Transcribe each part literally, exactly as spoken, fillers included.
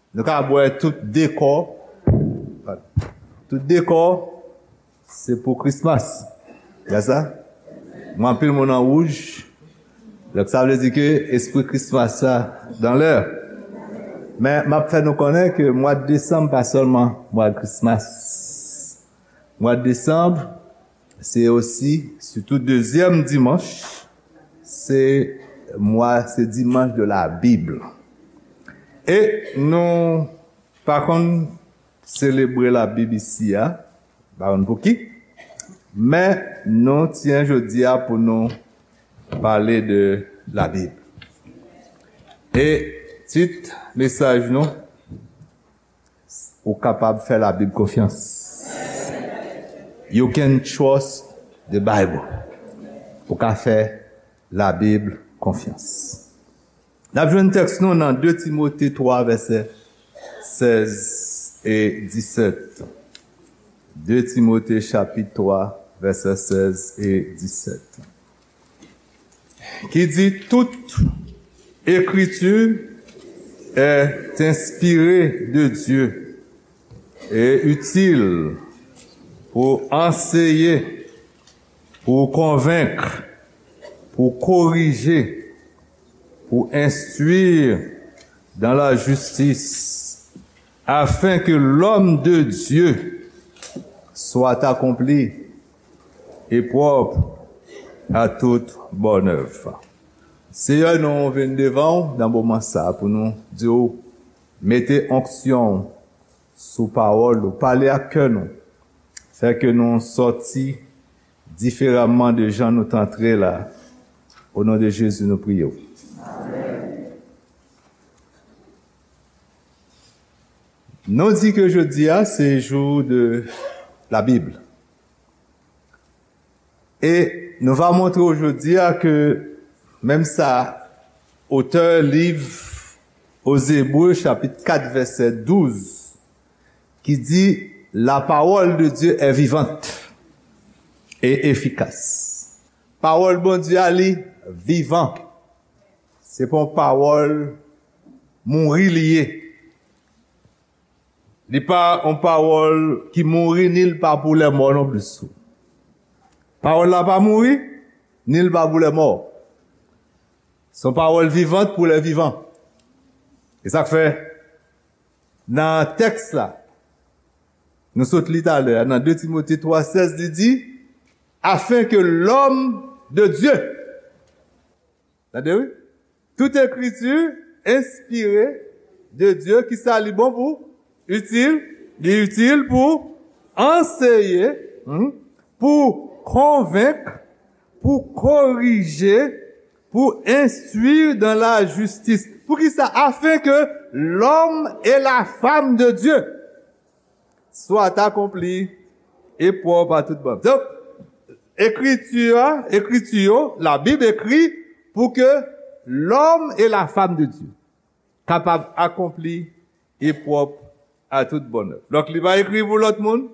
Nou ka bwè tout dekò. Tout dekò, se pou Christmas. Gad sa? Mwen anpil moun an wouj. Donk, sa vle di ke espri Christmas sa dan lè. Men, m ap fè nou konnen ke mwa desanm pa sèlman mwa Christmas. Mwa desanm, se osi, sitou dezyèm dimanch, se mwa, se dimanch de la Bible. E nou pa konn selebre la Bib isi a, pa konn pouki, men nou tyen jodi a pou nou pale de la Bib. E tit mesaj nou, ou kapab fè la Bib konfyans. You can trust the Bible. Ou ka fè la Bib konfyans. N ap jwenn tèks nou nan de Timote twa, vèsè sèz e disèt. De Timote chapit twa, vèsè sèz e disèt. Ki di, toute écriture est inspirée de Dieu et utile pour enseigner, pour convaincre, pour corriger, pour instruire dans la justice, afin que l'homme de Dieu soit accompli et propre à toute bonne œuvre. Seyè, nou vin devan w nan moman sa pou nou di w mete onksyon w sou pawòl ou, pale ak kè nou, fè ke nou sòti diferaman de jan nou t antre la. O non de Jezi, nou priye w. Nou di ke jodi a se jou de la Bib. E nou va montre w jodi a ke menm sa otè liv aux Hébreux chapit kat vèsè douz ki di, la parole de Dieu est vivante et efficace. Pawòl Bondye a li vivan. Se pa yon pawòl mouri li ye. Li pa yon pawòl ki mouri, ni l pa pou lè mò non plis. Pawòl la pa mouri, ni l pa pou lè mò. Se yon pawòl vivant pou lè vivan. E sa k fè, nan tèks la, nou sot li talè a, nan de Timote twa sèz, li di, afin que l'homme de Dieu, tande wi, toute écriture inspirée de Dieu, ki sa li bon pou? Itil, li itil pou anseye, hmm, pou konvenk, pou korije, pour instruire dans la justice. Pou ki sa? Afin que l'homme et la femme de Dieu soit accompli et propre à toute bonne œuvre. Donk, ekriti a, ekriti yo, la Bible écrit pour que l'homme et la femme de Dieu kapab akonpli e pwòp a tout bònè. Donk, li pa ekri pou lòt moun,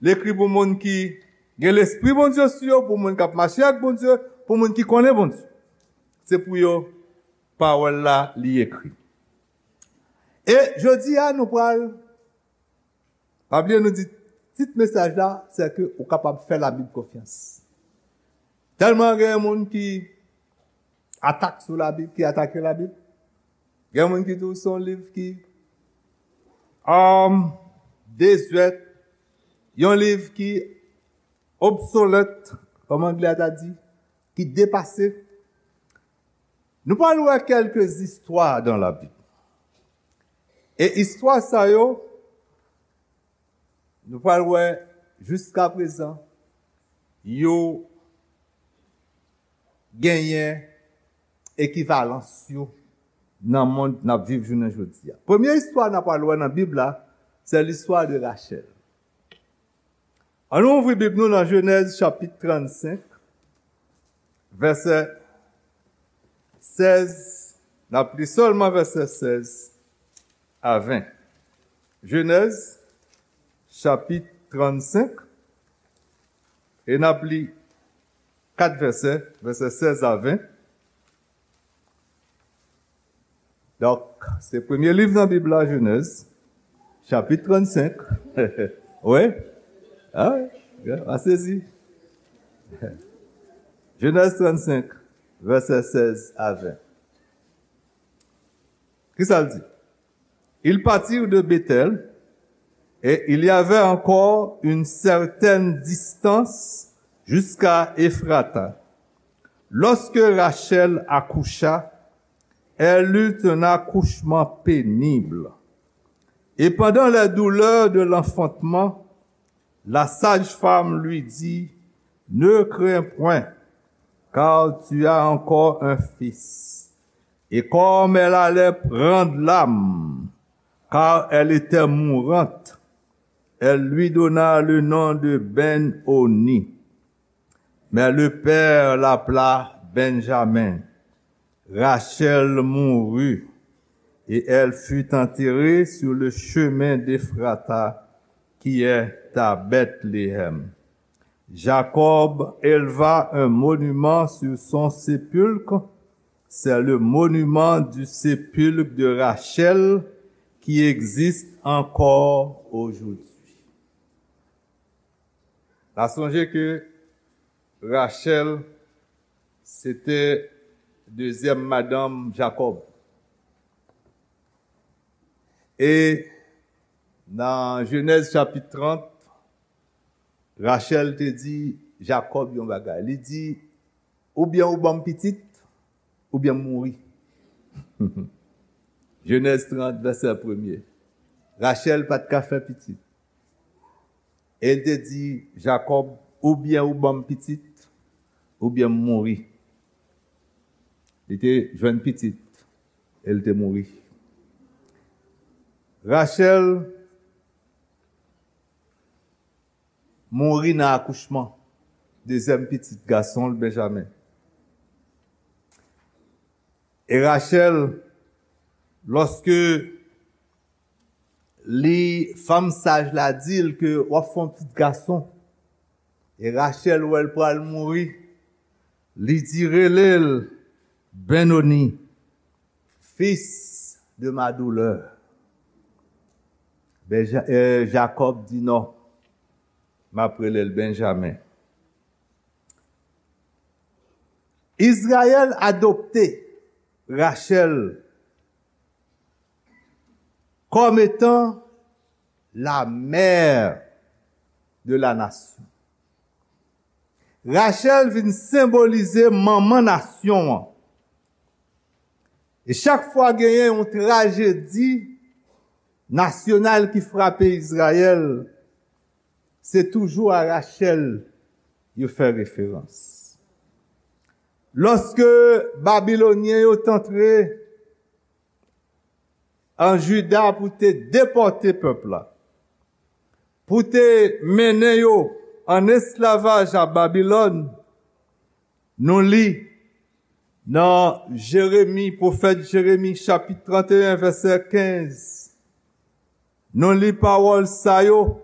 li ekri pou moun ki gen Lespri Bondye sou yo, pou moun k ap mache ak Bondye, pou moun ki konnen Bondye. Se pou yo pawòl la li ekri. E jodi a, nou pral, pa bliye nou di, tit mesaj la, se ke ou kapab fè Labib konfyans. Tèlman gen moun ki atak sou Labib, ki atake Labib. Gen moun ki di w se yon liv ki, um, dezwèt, yon liv ki obsolèt, kòm anglè a ta di, ki depase. Nou pral wè kèlke istwa dan Labib. E istwa sa yo, nou pral wè jiskaprezan, yo genyen ekivalans yo nan mond n ap viv jounen jodi a. Premye istwa n ap pral wè nan Bib la, se listwa de Rachèl. Ann nou ouvri Bib nou nan Jenèz chapit trannsenk, vèsè sèz, n ap li sèlman vèsè sèz a ven. Jenèz, chapit trannsenk, e n ap li kat vèsè, vèsè sèz a ven. Donk, se premye liv nan Bib la, Jenèz, chapit trannsenk. Wi? A wi, a sezi. Jenèz trannsenk, vèsè sèz a ven. Kisa l di? Ils partirent de Béthel, et il y avait encore une certaine distance jusqu'à Éphrata. Lorsque Rachel accoucha, elle eut un accouchement pénible. Et pendant les douleurs de l'enfantement, la sage-femme lui dit, ne crains point, car tu as encore un fils. Et comme elle allait prendre l'âme, car elle était mourante, elle lui donna le nom de Ben-Oni. Mais le père l'appela Benjamin. Rachel mourut, et elle fut enterrée sur le chemin d'Éphrata, qui est à Bethléem. Jacob éleva un monument sur son sépulcre. C'est le monument du sépulcre de Rachel qui existe encore aujourd'hui. N a sonje ke Rachel se te dezyèm madanm Jakòb. E nan Jenèz chapit trant, Rachel te di Jakòb yon bagay. Li di, oubyen ou ban m pitit, oubyen m mouri. Jenèz trant, vèsè premye. Rachel pa t ka fè pitit. E l te di Jakòb, oubyen ou ban m pitit, oubyen m mouri. Li te jwenn pitit, e l te mouri. Rachel mouri nan akouchman dezyèm pitit gason l, Benjamen. E Rachel, lòske li, fanm saj la di l ke w ap fè yon pitit gason, e Rachel wè l pral mouri, li di, rele l Benoni, fils de ma douleur. Benja-, eh, Jakòb di non, m ap rele l Benjamen. Izrayèl adopte Rachel comme étant la mère de la nation. Rachel vin senbolize manman nasyon an. E chak fwa genyen yon trajedi nasyonal ki frape Izrayèl, se toujou a Rachel yo fè referans. Lòske Babilonyen yo t antre an Jida pou te depòte pèp la, pou te mennen yo an esklavaj a Babilòn, nou li nan Jeremi, pwofèt Jeremi, chapit trant e en, vèsè kenz. Nou li pawòl sa yo,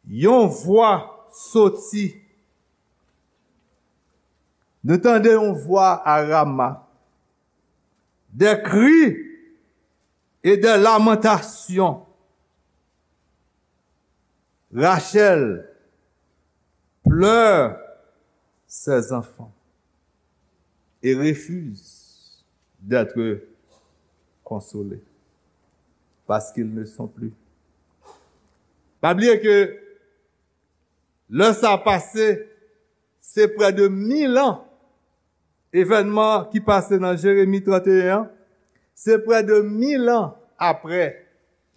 yon vwa soti. Nou tande yon vwa a Rama, des cris et des lamentations. Rachel pleure ses enfants et refuse d'être consolée parce qu'ils ne sont plus. Pa bliye ke lè sa pase, se prè de mil an, evènman ki pase nan Jeremi trant e en an, se prè de mil an apre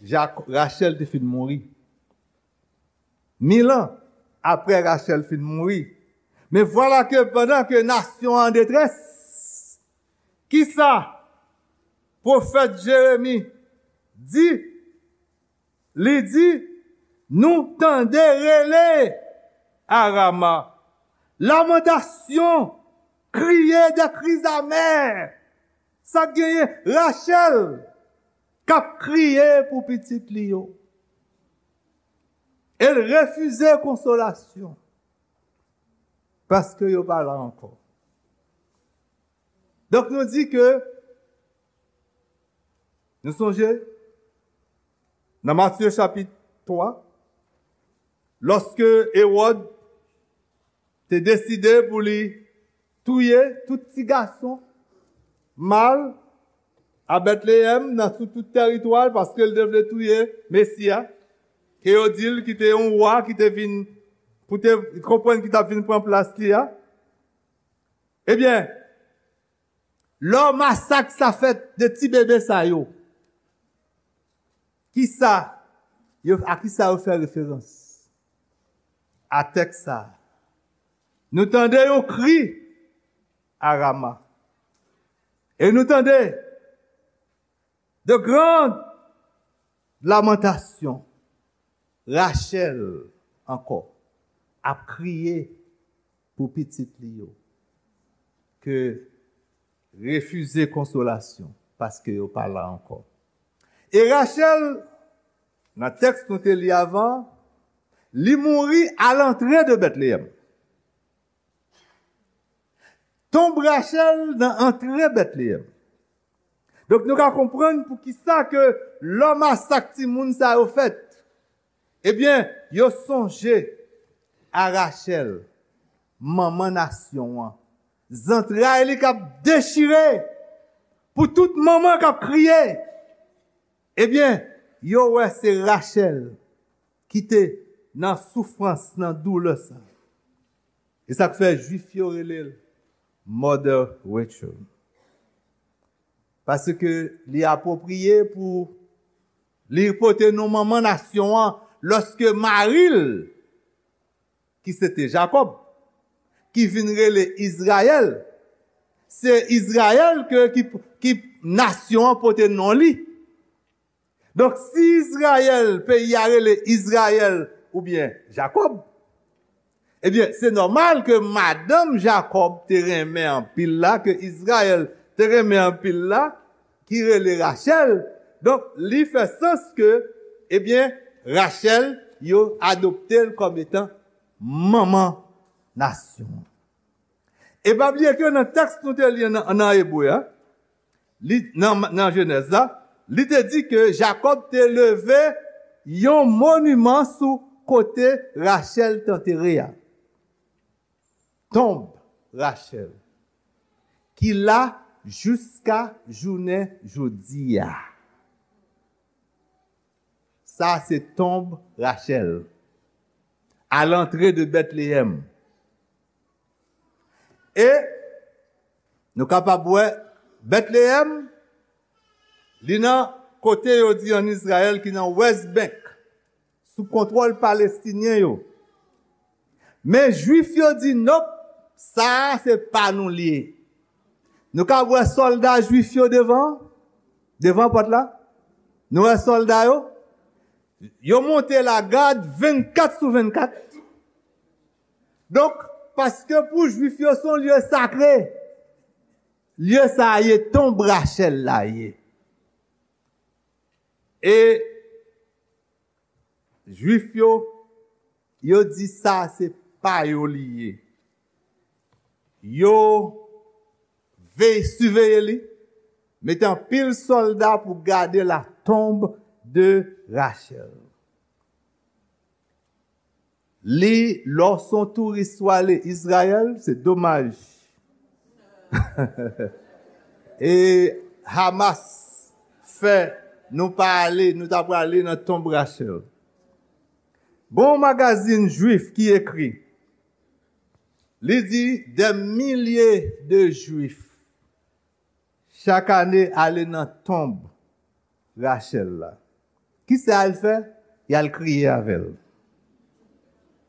Jak-, Rachel te fin mouri. Mil an apre Rachel fin mouri. Men vwala ke pandan ke nasyon an an detrès, kisa pwofèt Jeremi di? Li di, nou tande rele a Rama, lamantasyon, kriye de kriz amè. Sa k genyen? Rachel k ap kriye pou pitit li yo. E l refize konsolasyon paske yo pa la ankò. Donk, nou di ke Nou sonje, nan Matye chapit twa, lòske Ewòd te deside pou li touye tout ti gason mal a Betleyèm, nan sou tout tèritwa l, paske l te vle touye Mesi a, ke yo di l ki te yon wa ki te vin, pou te konprann ki t ap vin pran plas li a. Ebyen, lè masak sa fèt de ti bebe sa yo, kisa yo, a kisa yo fè referans? A tèks sa a. Nou tande yon kri a Rama. E nou tande de grandes lamentations. Rachèl ankò ap kriye pou pitit li yo, ke refize konsolasyon, paske yo pa la ankò. E Rachèl, nan tèks nou te li avan, li mouri a lantre de Betleyèm. Tonb Rachèl nan antre Betleyèm. Donk, nou ka konprann poukisa ke lè masak timoun sa yo fèt, ebyen, yo sonje a Rachèl, manman nasyon an. Zantray li k ap dechire pou tout manman k ap kriye. Ebyen, yo wè se Rachèl ki te nan soufrans, nan doulè sa. E sa k fè Jwif yo rele l Mother Rachel. Paske li apwopriye pou li pote non manman nasyon an, lòske mari l, ki se te Jakòb, ki vin rele Izrayèl, se Izrayèl ke, ki, ki nasyon an pote non li. Donk, si Izrayèl, peyi a rele Izrayèl oubyen Jakòb, ebyen, se nòmal ke madanm Jakòb te renmen anpil la, ke Izrayèl te renmen anpil la, ki rele Rachèl. Donk, li fè sans ke, ebyen, Rachèl, yo adopte l kòm etan manman nasyon an. E pa bliye ke nan tèks nou te li nan, nan Ebre a, li, nan, nan Jenèz la, li te di ke Jakòb te leve yon moniman sou kote Rachèl t antere a. Tonb Rachèl, ki la jiska jounen jodi a. Sa se tonb Rachèl, a lantre de Betleyèm. E nou kapab wè Betleyèm, li nan kote yo di ann Izrayèl ki nan West Bank, sou kontwòl Palestinyen yo. Men Jwif yo di, "Nòp, sa a se pa nou l ye." Nou ka wè sòlda Jwif yo devan, devan pòt la. Nou wè sòlda yo. Yo monte lagad vennkat sou vennkat. Donk, paske pou Jwif yo, se yon lye sakre. Lye sa a ye, tonb Rachèl la ye. E Jwif yo, yo di sa se pa yo li ye. Yo veye, siveye li, mete anpil sòlda pou gade la tombe de Rachel. Li, lè w se yon touris w ale Izrayèl, se domaj. E Hamas fè nou pa ale, nou ta prale nan tonb Rachel. Gon magazin jwif ki ekri, li di, des milliers de Juifs chak ane ale nan tonb Rachel la. Kisa y al fè? Y al kriye avè l.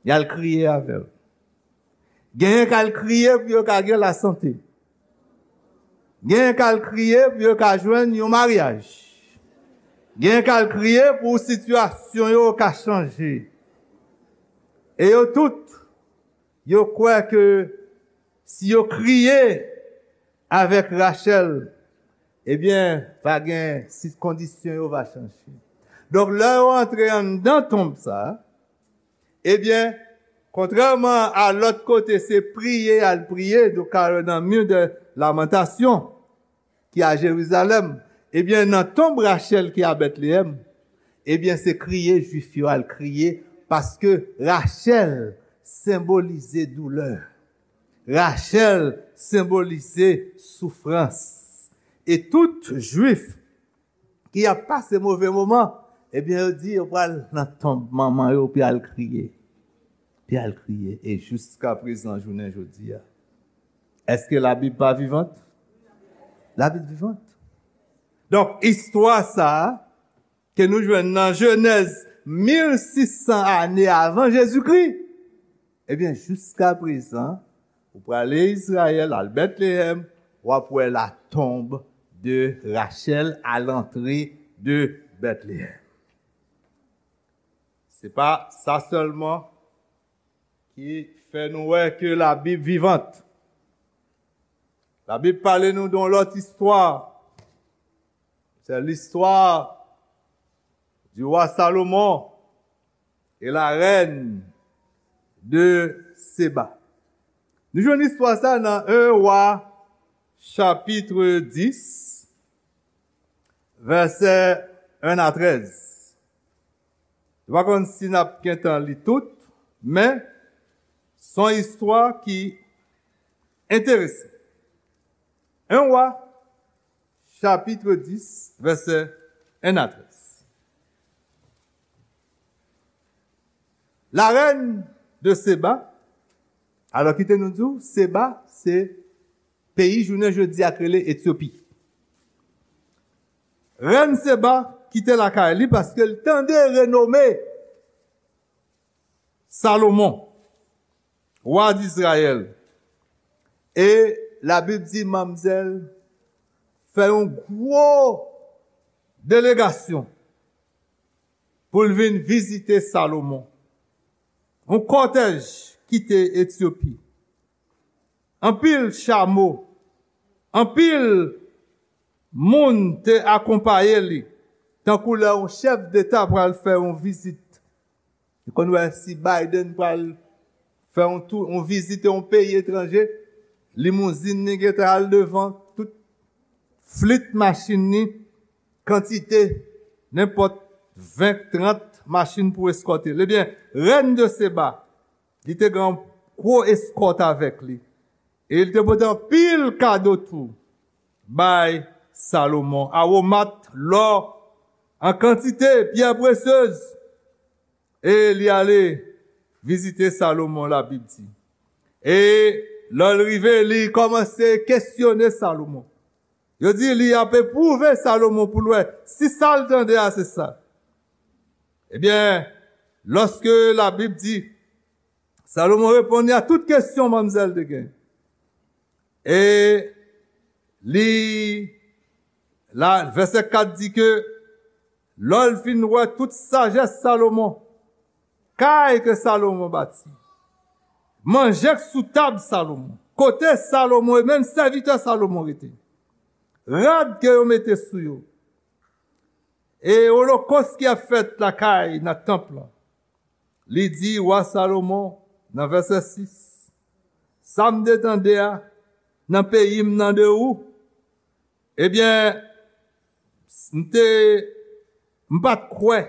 Y al kriye avè l. Genyen k al kriye pou yo ka gen lasante. Genyen k al kriye pou yo ka jwenn yon maryaj. Genyen k al kriye pou sitiyasyon yo ka chanje. E yo tout, yo kwè ke si yo kriye avèk Rachel, ebyen, va gen, si kondisyon yo va chanje. Donk, lè yo antre anndan tonb sa, ebyen, kontrèman a lòt kote, se priye y al priye, nou ka wè nan Mur de Lamentation, ki a Jerizalèm. Ebyen, nan tonb Rachèl ki a Betleyèm, ebyen, se kriye Jwif yo al kriye, paske Rachèl senbolize doulè. Rachèl senbolize soufrans. E tout Jwif ki ap pase move moman, ebyen, yo di yo pral nan tonb manman yo pou y al kriye. Pou y al kriye. E jiska prezan, jounen jodi a, èske Labib pa vivant? Labib vivant. Donk, istwa sa a, ke nou jwenn nan Jenèz mil sis san ane avan Jezikri, ebyen, jiska prezan, ou prale Izrayèl, al Betleyèm, w ap wè latonb de Rachèl a lantre de Betleyèm. Se pa sa sèlman ki fè nou wè ke Labib vivant. Labib pale nou de yon lòt istwa. C'est l'histoire du roi Salomon et la reine de Séba. Nou jwenn istwa sa nan en Wa, chapit dis, vèsè en a trèz. M pa konn si n ap gentan li tout, men se yon istwa ki enteresan. En Wa, chapit dis, vèsè en a trèz. La reine de Séba, alò, kite nou di w, Séba, se peyi jounen jodi a k rele Etyopi. Rèn Séba kite lakay li paske l tande renome Salomon, wa Dizrayèl. E Labib di manmzèl fè yon gwo delegasyon pou l vin vizite Salomon. Yon kòtèj kite Etyopi. Anpil chamo, anpil moun te akonpaye li, tankou lè yon chèf deta pral fè yon vizit. Ou konn wè si Biden pral fè yon tou, yon vizit yon peyi etranje, limouzin li gentan al devan, tout flit machin li, kantite, nenpòt ven, trant machin pou eskòte l. Ebyen, rèn de Seba, li te gen yon gwo eskòt avèk li. E li te pote anpil kado tou bay Salomon, awomat, lò an kantite, pyè presyez. E li ale vizite Salomon, Labib di. E lè l rive, li kòmanse kesyone Salomon. Yo di li ap epwouve Salomon pou l wè si sa l tande a se sa. Ebyen, lòske Labib di, Salomon reponn li a tout kesyon manmzèl te gen. E li, la, vèsè kat di ke lè l fin wè tout sajès Salomon, kay ke Salomon bati, manje k sou tab Salomon, kote Salomon e menm sèvitè Salomon rete, rad ke yo mete sou yo, e olokòs ki ap fèt lakay nan tanp lan, li di wa Salomon nan vèsè sis, sa m te tande a nan peyi m nan de ou, ebyen, m te, m pa t kwè.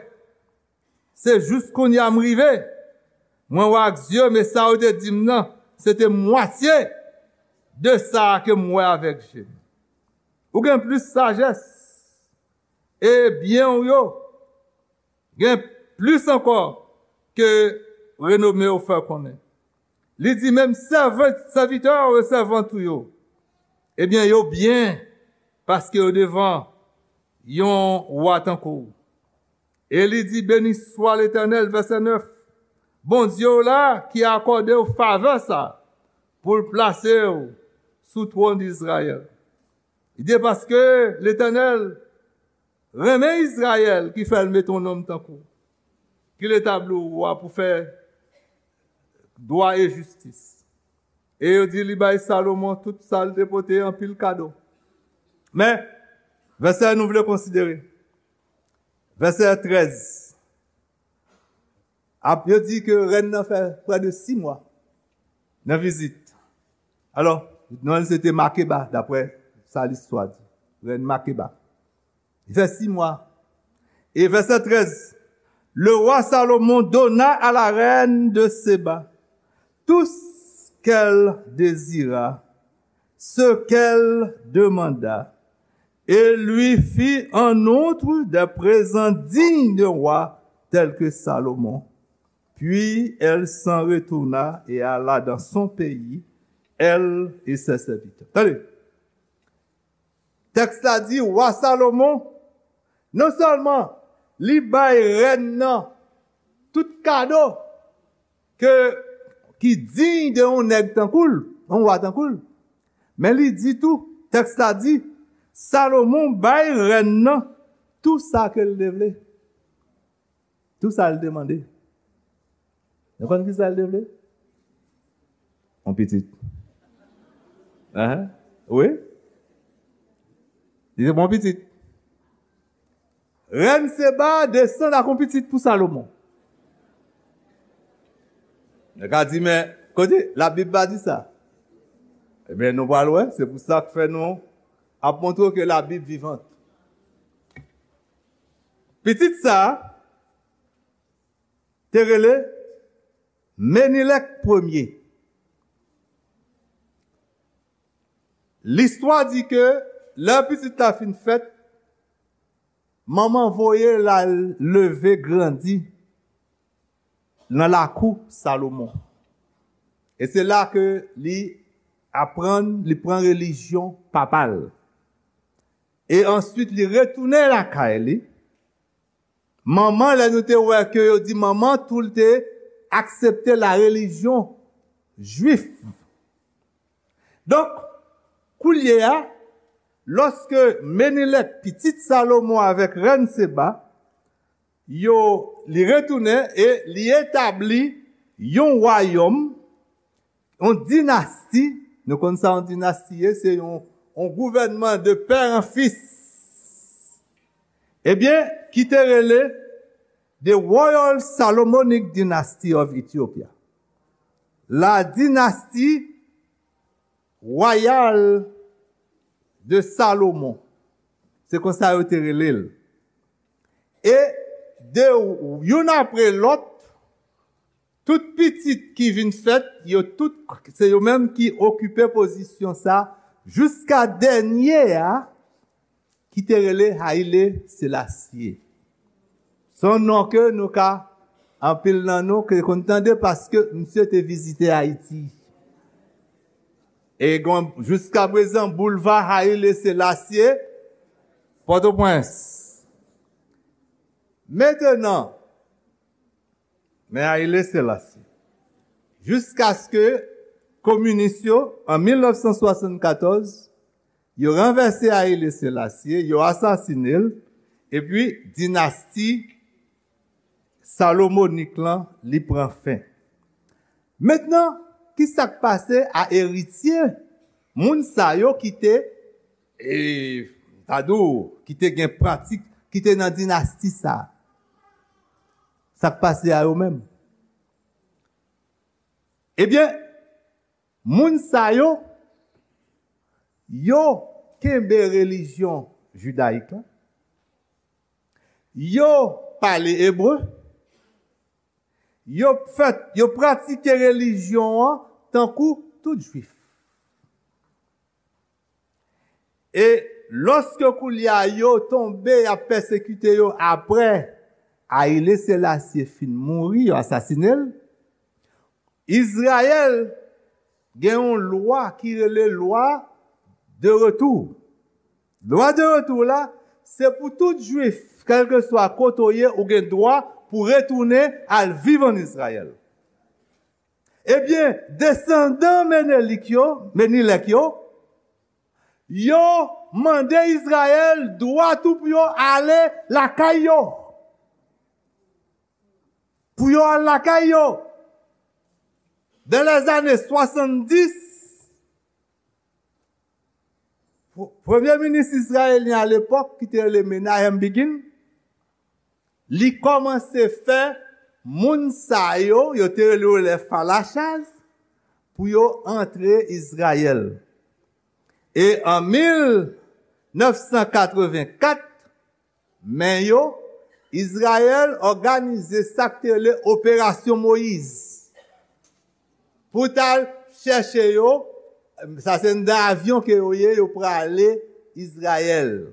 Se jis kounye a m rive. Mwen wè ak zye m, e sa yo te di m nan, se te mwatye de sa ke m wè avèk je m. Ou gen plis sajès e byen w yo gen plis ankò ke renome w fè konnen. Li di menm sèvant, sèvitè w e sèvant ou yo, ebyen, yo byen, paske yo devan yon wa tankou w. E li di, beni swa Letènèl, vèsè nèf, Bondye w la ki akòde w favè sa, pou l plase w sou twòn Izrayèl. Li di, paske Letènèl renmen Izrayèl ki fè l mete yon nonm tankou w, ki l etabli w wa pou fè dwa e jistis. E yo di li bay Salomon tout sa l te pote, anpil kado. Men, vèsè nou vle konsidere. Vèsè trèz. Ap, yo di ke rèn nan fè prè de sis mwa nan vizit. Alò, non l se te Makeba, daprè sa listwa di. Rèn Makeba. Il fait six mois. Et verset treize, le roi Salomon donna à la reine de Séba tout ce qu'elle désira, ce qu'elle demanda, et lui fit en outre des présents dignes de roi tels que Salomon. Puis elle s'en retourna et alla dans son pays, elle et ses serviteurs. Tande, tèks la di, wa Salomon, non sèlman li bay rèn nan tout kado ke, ki diy de yon nèg tankou l, yon wa tankou l, men li di tou, tèks la di, Salomon bay rèn nan tou sa ke l te vle. Tou sa l te mande. Nou konn ki sa l te vle? Yon pitit. Ahan. Wi. Li te bon pitit. Rèn Seba desann ak yon pitit pou Salomon. Nèg la di, men, kote? Labib pa di sa. Ebyen, nou pral wè. Se pou sa k fè nou ap montre ke Labib vivant. Pitit sa a te rele Menilèk premye. Listwa di ke lè pitit la fin fèt, manman voye l al leve grandi nan lakou Salomon. E se la ke li aprann, li pran relijyon papa l. E answit, li retounen lakay li. Manman, lè nou te wè ke yo di manman, tou l te aksepte la relijyon jwif. Donk, koulye a, lòske Menilèk, pitit Salomon avèk rèn Seba, yo, li retounen e li etabli yon wayòm, yon dinasti, nou konn sa yon dinasti ye, se yon, yon gouvènman de père en fils. Ebyen, ki te rele The Royal Salomonic Dynasty of Ethiopia. La dynastie royale de Salomon. Se konsa yo te rele l. E de youn apre lòt, tout pitit ki vin fèt, yo tout, se yo menm ki okipe pozisyon sa, jiska dènye a, ki te rele Haile Selassie. Se yon non ke nou ka, anpil nan nou ke konn tande paske misye te vizite Ayiti. E gen, jiska prezan, boulva Haile Selassie, Pòtoprens. Mentenan, men Haile Selassie. Jiskaske kominis yo, an mil nèf san swasannkatòz, yo ranvèse Haile Selassie, yo asasinen l, epi dinasti Salomonik lan, li pran fen. Mentnan, ki sa k pase a eritye moun sa yo ki te, e, ta di w, ki te gen pratik, ki te nan dinasti sa a? Sa k pase a yo menm? Ebyen, moun sa yo, yo kenbe relijyon jidayik la, yo pale ebre, yo fè, yo pratike relijyon an tankou tout jwif. E lòske koulye a yo tonbe, y ap pèsekite yo apre Ayile Selasye fin mouri, yo asasinen l, Izrayèl gen yon lwa ki rele lwa de retou. Lwa de retou la, se pou tout jwif, kèlkeswa kote w ye, ou gen dwa pou retounen al viv ann Izrayèl. Ebyen, desandan Menelik yo, Menilèk yo, yo mande Izrayèl dwa tou pou yo ale lakay yo. Pou yo al lakay yo. Dans les années soixante-dix, pr-, premye minis izrayelyen alepòk, ki te rele Menachem Begin, li kòmanse fè moun sa yo, yo te rele yo les Falachas, pou yo antre Izrayèl. E an mil nèf san katrevenkat, men yo, Izrayèl òganize sa k te rele Operasyon Moyiz. Pou t al chèche yo, sa se nan avyon ke yo ye, yo prale Izrayèl.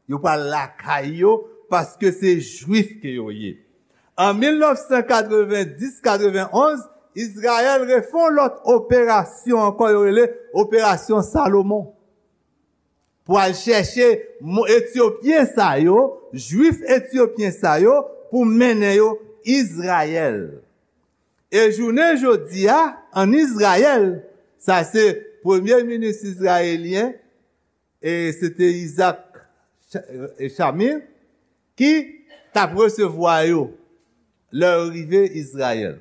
Yo pral lakay yo, paske se Jwif ke yo ye. An mil nèf san katrevenndis katrevenonz, Izrayèl refè yon lòt operasyon ankò, yo rele Operasyon Salomon. Pou al chèche mo-, Etyopyen sa yo, Jwif Etyopyen sa yo, pou mennen yo Izrayèl. E jounen jodi a, ann Izrayèl, sa se premye minis izrayelyen, e se te Isaac Sha-, e Shamir, ki t ap resevwa yo lè yo rive Izrayèl.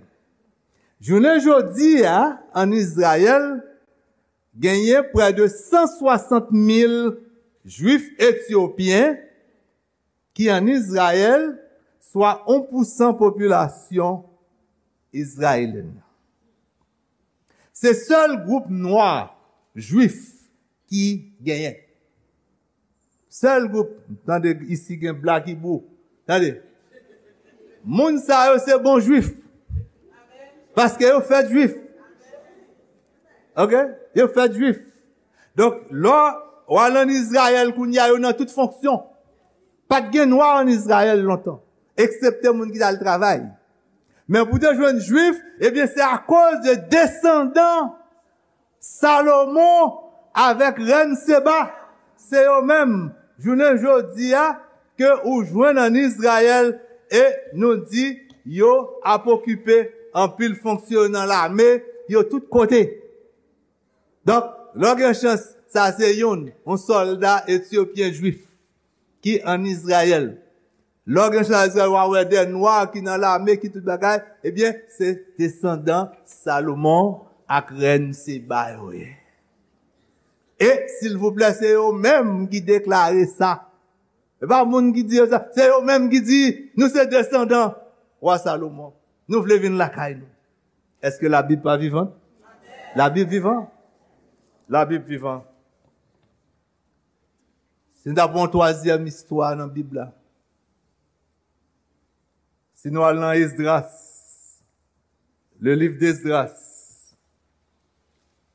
Jounen jodi a, ann Izrayèl, genyen prè de san swasant mil Jwif etyopyen ki ann Izrayèl, swa yon pousan popilasyon izrayelyèn nan. Se sèl gwoup nwa jwif ki genyen. Sèl gwoup, tande, isi gen Black Hebrew. Tande. Moun sa yo se bon jwif. Paske yo fèt jwif. Ok? Yo fèt jwif. Donk, lè w al ann Izrayèl kounye a, yo nan tout fonksyon. Pa t gen nwa ann Izrayèl lontan, eksepte moun ki t al travay. Men pou te jwenn jwif, ebyen, se akoz de desandan Salomon avèk rèn Seba. Se yo menm, jounen jodi a, ke ou jwenn ann Izrayèl, e nou di yo ap okipe anpil fonksyon nan lame, yo tout kote. Donk, lè w gen chans, sa se youn, yon sòlda etyopyen jwif ki ann Izrayèl. Lè w gen chans ann Izrayèl, w a wè de nwa ki nan lame, ki tout bagay, ebyen, se desandan Salomon ak rèn Seba yo ye. E, silvouplè, se yo menm ki deklare sa. E pa moun ki di yo sa, se yo menm ki di, "Nou se desandan wa Salomon. Nou vle vin lakay nou." Èske Labib pa vivan? Labib vivan. Labib vivan. Si n ta pran yon twazyèm istwa nan Bib la, si nou al nan Esdras, le livre d'Esdras,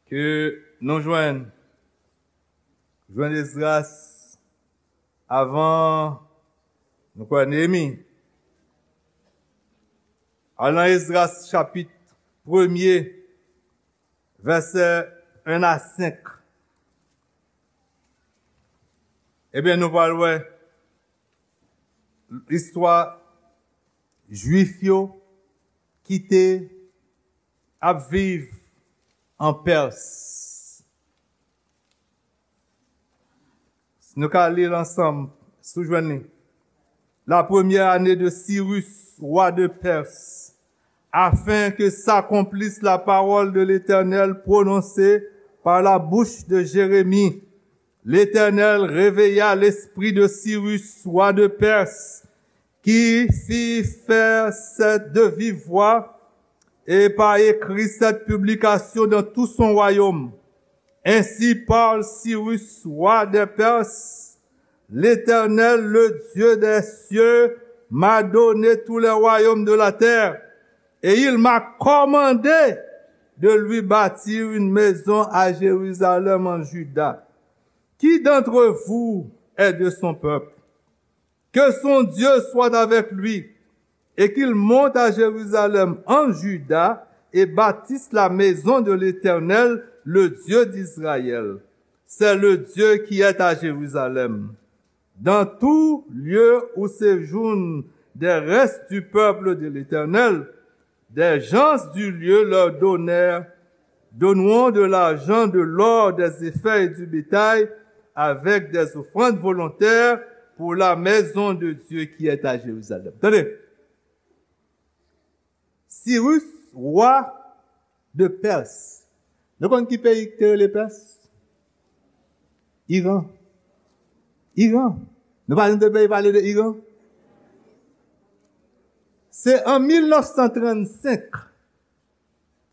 ke nou jwenn, jwenn Esdras avan, nou kwè, Neyemi. Al nan Esdras chapit premye, vèsè en a senk. Ebyen, nou pral wè istwa Jwif yo ki te ap viv an Pès. Si nou ka li l ansanm, si w jwenn li. La première année de Cyrus, roi de Perse, afin que s'accomplisse la parole de l'Éternel prononcée par la bouche de Jérémie, l'Éternel réveilla l'esprit de Cyrus, roi de Perse, qui fit faire cette de vive voix et par écrit cette publication dans tout son royaume. Ainsi parle Cyrus, roi des Perses, l'Éternel, le Dieu des cieux, m'a donné tous les royaumes de la terre, et il m'a commandé de lui bâtir une maison à Jérusalem en Juda. Qui d'entre vous est de son peuple? Que son Dieu soit avec lui, et qu'il monte à Jérusalem en Juda, et bâtisse la maison de l'Éternel, le Dieu d'Israël. C'est le Dieu qui est à Jérusalem. Dans tout lieu où séjournent des restes du peuple de l'Éternel, des gens du lieu leur donnèrent, donneront de l'argent, de l'or, des éphas et du bétail, avec des offrandes volontaires pour la maison de Dieu qui est à Jérusalem. Tande. Sirus, wa de Pès. Nou konn ki peyi ki te rele Pès? Iran. Iran. Nou pa jwenn de peyi pale de Iran? Se an mil nèf san trannsenk.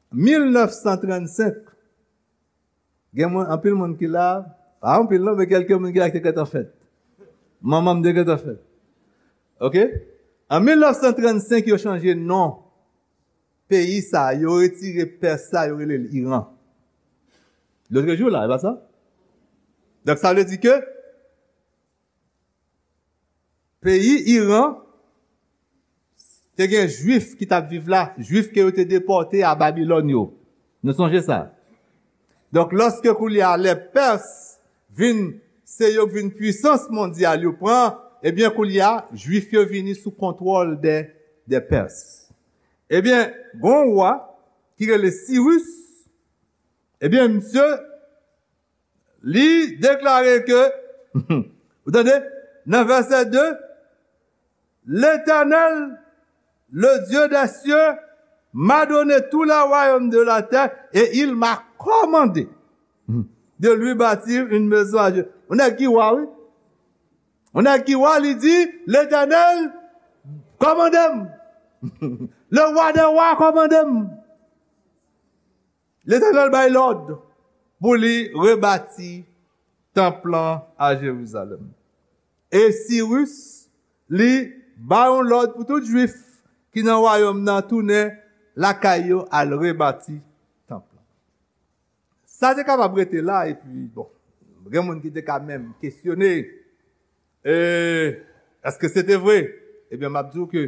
Mil nèf san trannsenk. Gen moun, anpil moun ki la, pa anpil non, men kèlke moun ki la ki te gentan fèt. Manman m te gentan fèt. Oke? An mil nèf san trannsenk, yo chanje non peyi sa, yo retire Pès la, yo rele l Iran. Lòt jou la, e pa sa? Donk, sa vle di ke peyi Iran te gen Jwif ki t ap viv la, Jwif ke yo te depòte a Babilòn yo. Nou sonje sa? Donk, lòske koulye a lè Pès vin, se yo k vin pwisans mondyal, yo pran, ebyen, koulye a, Jwif yo vini sou kontwòl dè, dè Pès. Ebyen, gon wa ki rele Siris, ebyen, misye, li deklare ke, ou tande, nan vèsè de, L'Éternel, le Dieu des cieux, m'a donné tous les royaumes de la terre et il m'a commandé de lui bâtir une maison à Dieu. Yon nèg ki wa, wi. Yon nèg ki wa, li di, Letènèl kòmande m. Le roi des rois kòmande m. Letènèl bay lòd pou li rebati tanp lan a Jerizalèm. E Siris, li ba yon lòd pou tout Jwif ki nan wayòm nan tounen lakay yo al rebati tanp lan. Sa te kapab rete la, epi, bon, gen moun ki te ka menm kesyone, e, èske se te vre? Ebyen, m ap di w ke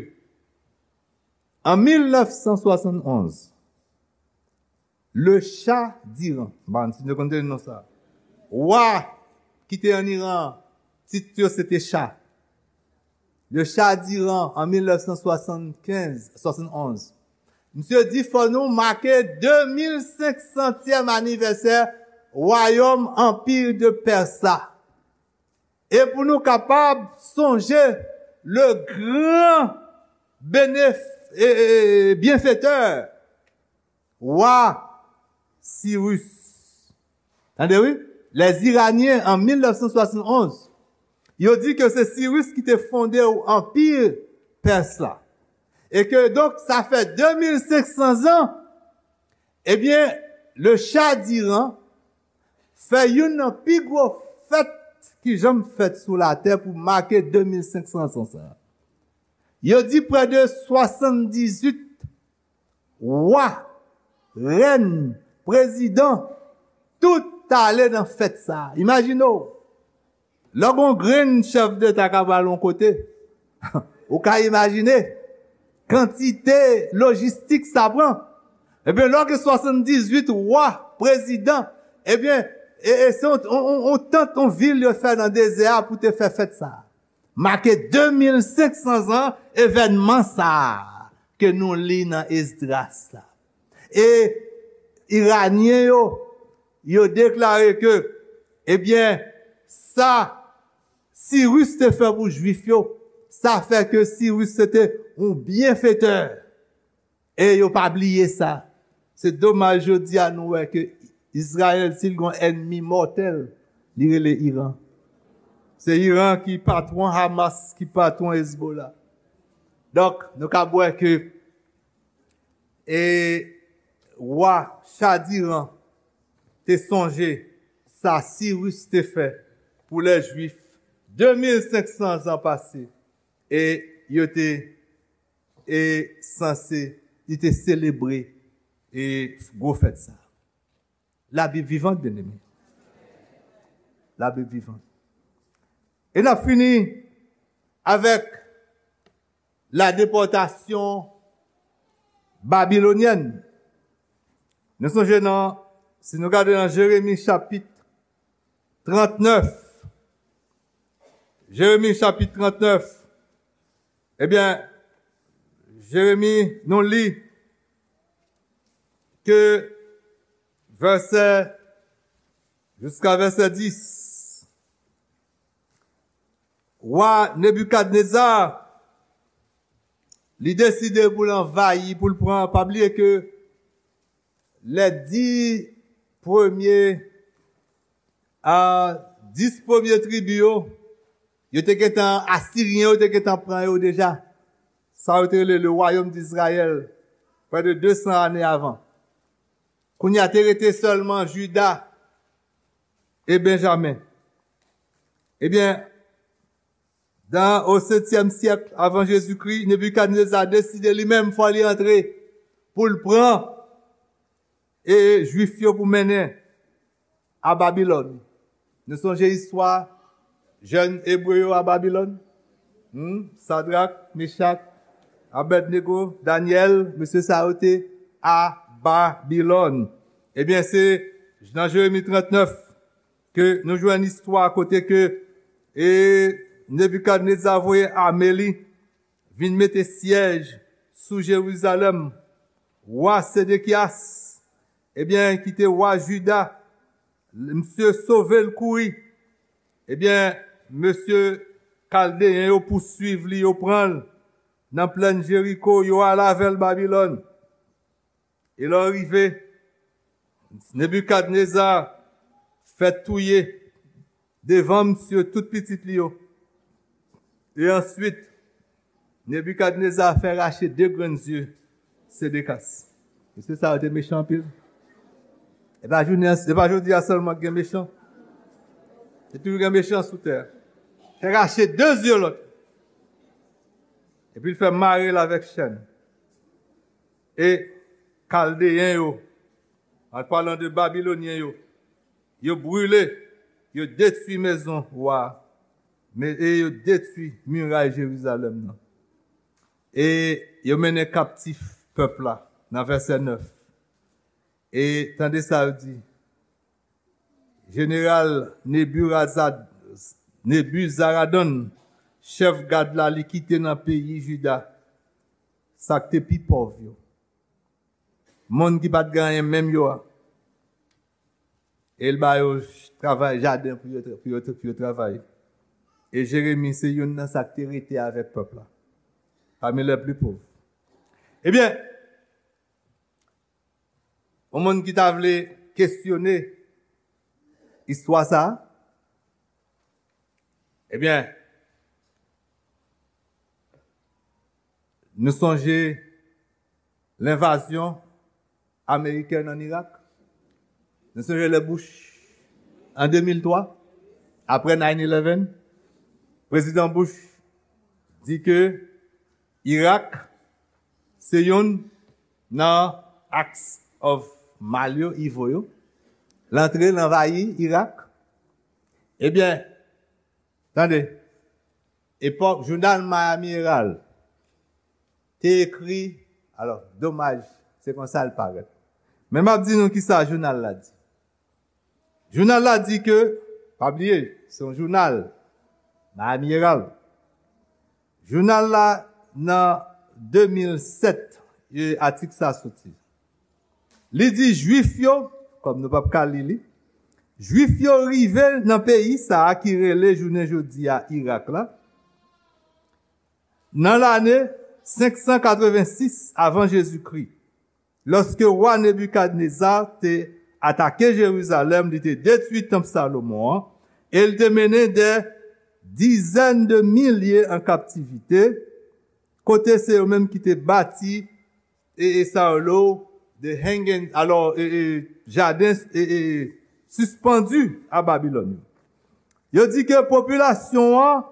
an mil nèf san swasann onz, le Shah d'Iran, m pa konn si nou konn tande non sa, wa ki te an Iran, tit yo se te Shah. Le Shah d'Iran, an mil nèf san swasann kenz, swasann onz, misye di, fò nou make de mil senk santyèm anivèsè wayòm Anpi de Pès la. E pou nou kapab sonje le gran benef-, e, e, e, byenfetè, wa Siris. Tande wi, les Iraniens an mil nèf san swasann onz, yo di ke se Siris ki te fonde anpi Pès la. E ke donk sa fè de mil senk san zan, ebyen, le Shah d'Iran fè youn nan pi gwo fèt ki janm fèt sou latè pou make de mil senk san zan sa. Yo di prè de swasanndizwit wa, rèn, prezidan, tout t ale nan fèt sa. Imajine w, lè gon grenn chèf deta ka pral yon kote, ou ka imajine kantite lojistik sa pran. Ebyen, lè w gen swasanndizwit wa, prezidan, ebyen, e, e se yon, yon, yon, yon tant, yon vil yo fè nan dezè a pou te fè fèt sa. Make de mil senk san zan evènman sa a ke nou li nan Esdras la. E Iranyen yo, yo deklare ke, ebyen, sa Siris te fè pou Jwif yo, sa fè ke Siris se te yon byenfetè. E yo pa bliye sa. Se domaj jodi a nou wè ke Izrayèl, si l gon ènmi mòtèl, li rele Iran. Se Iran ki patwon Hamas, ki patwon Hezbollah. Donk, nou ka wè ke, e, wa Shah d'Iran te sonje sa Siris te fè pou lè Jwif de mil senk san zan pase, e yo te, e, sanse, li te selebre, e, gwo fèt sa. Labib vivan, byeneme. Labib vivan. E n ap fini avèk la depòtasyon babilonyèn. Nou sonje nan, si nou gade nan Jeremi chapit trannèf, Jeremi chapit trannèf, ebyen, Jeremi, nou li ke vèsè, jiska vèsè dis. Wa Nebikadneza, li deside pou l anvayi, pou l pran, pa bliye ke lè dis premye, a, dis premye tribi yo, yo te gentan, Asiryen yo te gentan pran yo deja. Sa yo te rele le wayòm d'Izrayèl, prè de de san ane avan. Kounye a te rete sèlman Jida e Benjamen. Ebyen, Dan o setyèm syèk avan Jezikri, Nebikadneza deside li menm fò li antre pou l pran e Jwif yo pou mennen a Babilòn. Nou sonje istwa jèn Ebre yo a Babilòn? Hmm? Sadrak, Mechak, Abèdnego, Danyèl, mesye sa yo te a Babilòn. Ebyen, se nan Jeremi trannèf ke nou jwenn istwa kote ke e Nebikadneza voye ame li vin mete syèj sou Jerizalèm. Wa Sedekyas, ebyen, ki te wa Jida, misye sove l kouri. Ebyen, mesye Kaldeyen yo pouswiv li, yo pran l nan plèn Jeriko, yo al avè l Babilòn. E lè yo rive, Nebikadneza fè touye devan misye tout pitit li yo. E answit, Nebikadneza fè rache de grenn zye Sedekas. Mesye sa yo te mechan anpil. E pa jounen, e pa jodi a sèlman gen mechan. E toujou gen mechan sou tè a. Fè rache de zye lòt. Epi l fè mare l avèk chèn. E Kaldeyen yo, an palan de Babilonyen yo, yo brile, yo detwi mezon wa a, men, e yo detwi miray Jerizalèm nan. E yo mennen kaptif pèp la, nan vèsè nèf. E tande sa yo di, Jeneral Neburazad-, Nebuzaradan, chèf gad la, li kite nan peyi Jida sa k te pi pòv yo. Moun ki pa t gen anyen menm yo a. E l ba yo travay jaden pou yo, pou yo, pou yo travay. E Jeremi se youn nan sa k te rete avèk pèp la. Pami lè pli pòv. Ebyen, yon moun ki ta vle kesyone istwa sa a, ebyen, nou sonje lenvazyon amerikèn ann Irak. Nou sonje lè Bush, an de mil twa, apre nine eleven, Prezidan Bush di ke Irak se youn nan acts of mal yo, evil yo. L antre, l anvayi Irak. Ebyen, tande, epòk, jounal Miami Herald te ekri, alò, domaj, se konsa l parèt. Men m ap di nou kisa jounal la di. Jounal la di ke, pa bliye, se yon jounal, Miami Herald. Jounal la, nan de mil sèt, e, atik sa soti. Li di Jwif yo, kòm nou p ap ka li li, Jwif yo rive nan peyi sa a ki rele jounen jodi a Irak la, nan lane senk san katrevensis avan Jezikri, lòske wa Nebikadneza te atake Jerizalèm, li te detwi tanp Salomon an, e l te mennen dè dizèn de milye an kaptivite, kote se yo menm ki te bati e, e sa yo lo, de hanging, alò, e, e, jaden, e, e, sispandu a Babilòn yo. Yo di ke popilasyon an,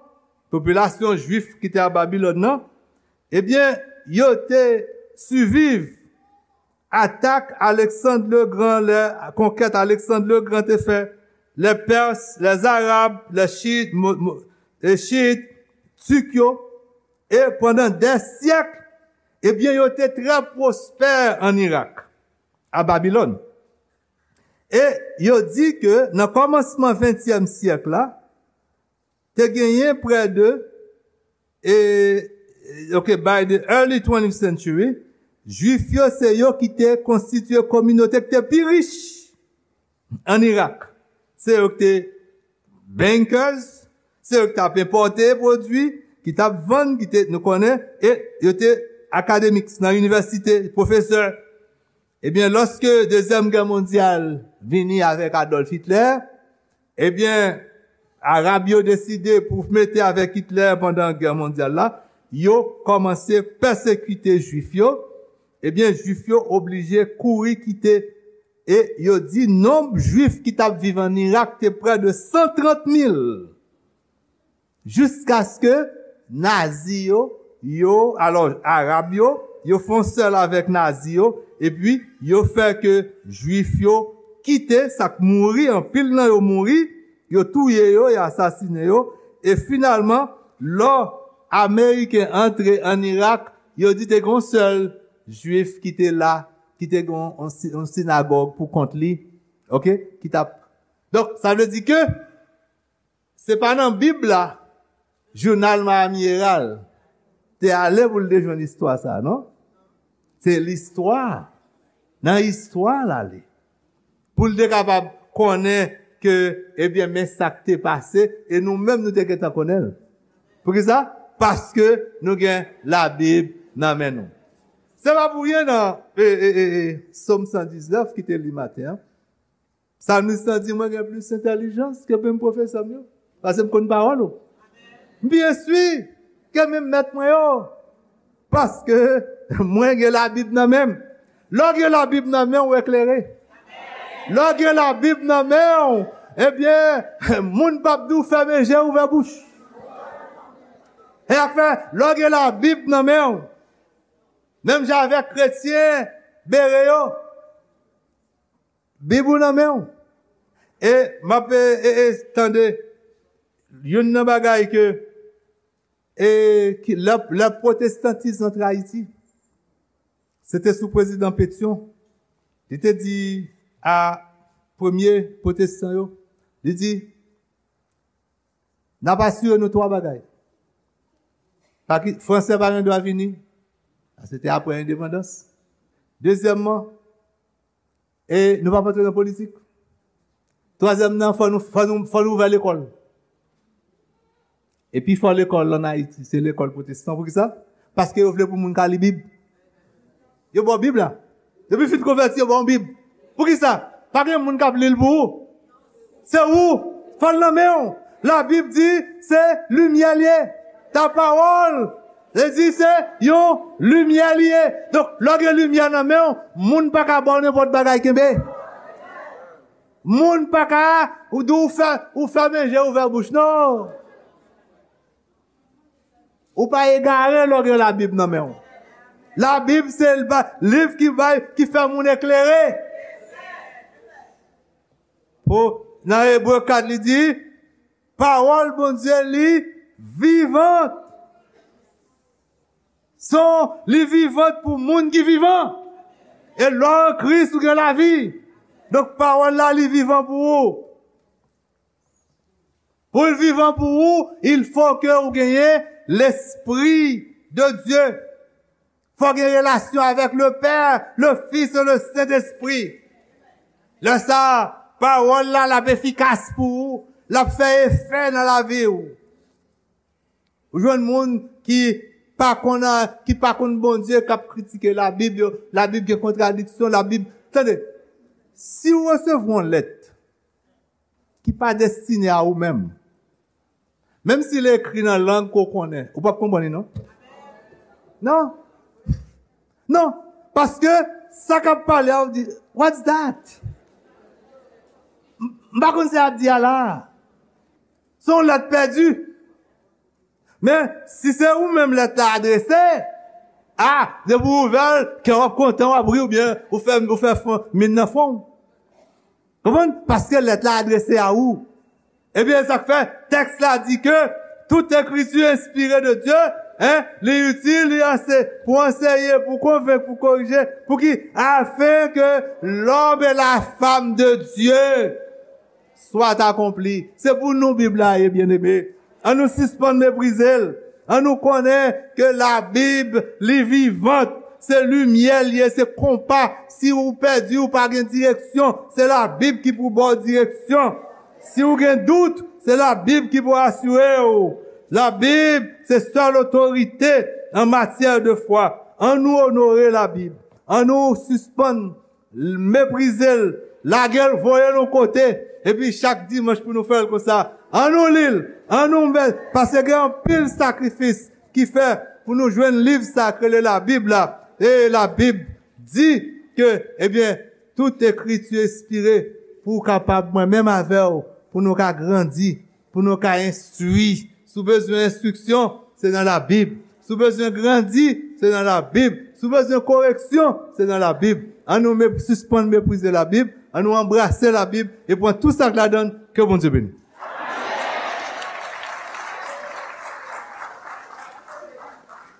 popilasyon jwif ki te a Babilòn nan, ebyen, yo te siviv atak Aleksann Legran, lè konkèt Aleksann Legran te fè, lè Pès, lè Zarab, lè Chit, mo, mo, e Chit, Tik yo, e pandan dè syèk, ebyen, yo te trè pwospè ann Irak, a Babilòn. E yo di ke nan kòmansman ventyèm syèk la, te genyen prè de, e, ok, by the early twentieth century, Jwif yo se yo ki te konstitye kominote ki te pi rich ann Irak. Se yo ki te bankers, se yo ki t ap enpòte pwodui, ki t ap vann, ki te, nou konnen, e yo te academics nan inivèsite, pwofesè. Ebyen, lòske Dezyèm Gè Mondyal vini avèk Adolf Hitler, ebyen, Arab yo deside pou mete avèk Hitler pandan Gè Mondyal la, yo kòmanse pèsekite Jwif yo. Ebyen, Jwif yo oblije kouri kite, e yo di nonb Jwif ki t ap viv ann Irak te prè de san trant mil. jiskaske Nazi yo, yo, alò, Arab yo, yo fè yon sèl avèk Nazi yo, epi yo fè ke Jwif yo kite, sa k mouri, anpil nan yo mouri, yo touye yo, yo asasinen yo, e finalman, lò Ameriken antre ann Irak, yo di te gen yon sèl Jwif ki te la, ki te gen yon, yon si- yon sinagòg pou kont li, oke, ki t ap. Donk, sa vle di ke se pa nan Bib la, jounal Miami Herald te ale pou l te jwenn istwa sa, non? Se listwa. Nan istwa l ale. Pou l te kapab konnen ke, ebyen, men sa k te pase, e nou menm nou te gentan konnen l. Poukisa? Paske nou gen Labib nan men nou. Se pa pou ryen nan e, e, e, e, Sòm san diznèf ki te li maten an. Psalmiste lan di, mwen gen plis entèlijans ke menm pwofesè m yo. Paske m konn pawòl ou. M pi enstwi ke menm mèt mwen yo. Paske mwen gen Labib nan men m. Lè w gen Labib nan men w, ou eklere. Lè w gen Labib nan men w, ebyen, moun p ap di w fèmen je, ouvè bouch. E sa k fè, lè w gen Labib nan men w, menm jan avèk kretyen bere yo, Bib ou nan men w. E m ap e, e, e, tande youn nan bagay ke, e, ki, lè, lè pwotestantis antre Ayiti, se te sou prezidan Pétion. Li te di a premye pwotestan yo, li di, n ap asire nou twa bagay. Pa ki, Fransè pa gen dwa vini, se te apre endepandans. Dezyèmman, e nou p ap antre nan politik. Twazyèm nan, fò nou, fò nou, fò nou ouvè lekòl. E pi fò lekòl ann Ayiti, se lekòl pwotestan. Poukisa? Paske yo vle pou moun ka li Bib. Yo ba w Bib la. Depi w fin konvèti, yo ba w Bib. Poukisa? Pa gen moun k ap li l pou ou. Se ou. Fò l nan men w. Labib di se limyè l ye. Ta pawòl, li di se yon limyè li ye. Donk, lè w gen limyè nan men w, moun pa ka ba w nenpòt bagay kenbe. Moun pa ka, ou di w fè, ou fèmen je, ouvè bouch. Non. Ou pa egare lè w gen Labib nan men w. Labib se l ba- liv ki bay, ki fè moun eklere. Po, nan Ebre kat, li di, pawòl Bondye li vivant. Son, li vivant pou moun ki vivan. E lè w an Kris, ou gen lavi. Donk, pawòl la, li vivan pou ou. Pou l vivan pou ou, il faut que ou genyen Lespri de Dye. Fò w gen relasyon avèk le Père, le Fils et le Saint-Esprit. Lè sa a, pawòl la, l ap efikas pou ou, l ap fè efè nan lavi w. Ou jwenn moun ki pa konn, ki pa konn Bondye, k ap kritike Labib yo, Labib gen kontradiksyon, Labib, tande, si w resevwa yon lèt ki pa destine a ou menm, menm si l ekri nan lang ke w konnen, ou p ap konprann li, non? Non. Non. Paske sa k ap pale a, ou di, what's that? M, m pa konn sa y ap di a la. Se yon lèt pèdi. Men, si se ou menm lèt la adrese, a, depi w ouvè l, kè w ap kontan, w ap ri, oubyen ou fè, ou fè fon, min nan fon w. Konprann? Paske lèt la adrese a ou. Ebyen, sa k fè, tèks la di ke tout ekriti enspire de Dye, en, li itil, li anse, pou anseye, pou konvenk, pou korije, pou ki, afin que l'homme et la femme de Dieu soit accompli. Se pou nou Bib la ye, byeneme. Ann nou sispann meprize l. Ann nou konnen ke Labib, li vivant. Se limyè l ye, se konpa. Si ou pèdi, ou pa gen direksyon, se Labib ki pou ba w direksyon. Si ou gen dout, se Labib ki pou asire w. Labib, se sèl otorite an matyè de fwa. Ann nou onore Labib. Ann nou sispann meprize l, lage l, voye l yon kote, epi chak dimanch pou nou fè l konsa. Ann nou li l, ann nou mèt, paske gen anpil sakrifis ki fè pou nou jwenn liv sa k rele Labib la. E Labib di ke, ebyen, tout ekriti enspire pou w kapab, mwen menm avè w, pou nou ka grandi, pou nou ka enstwi Si w bezwen enstriksyon, se nan Labib. Si w bezwen grandi, se nan Labib. Si w bezwen koreksyon, se nan Labib. An nou me- sispann meprize Labib, an nou anbrase Labib e pran tou sa k ladan l. Ke Bondye beni.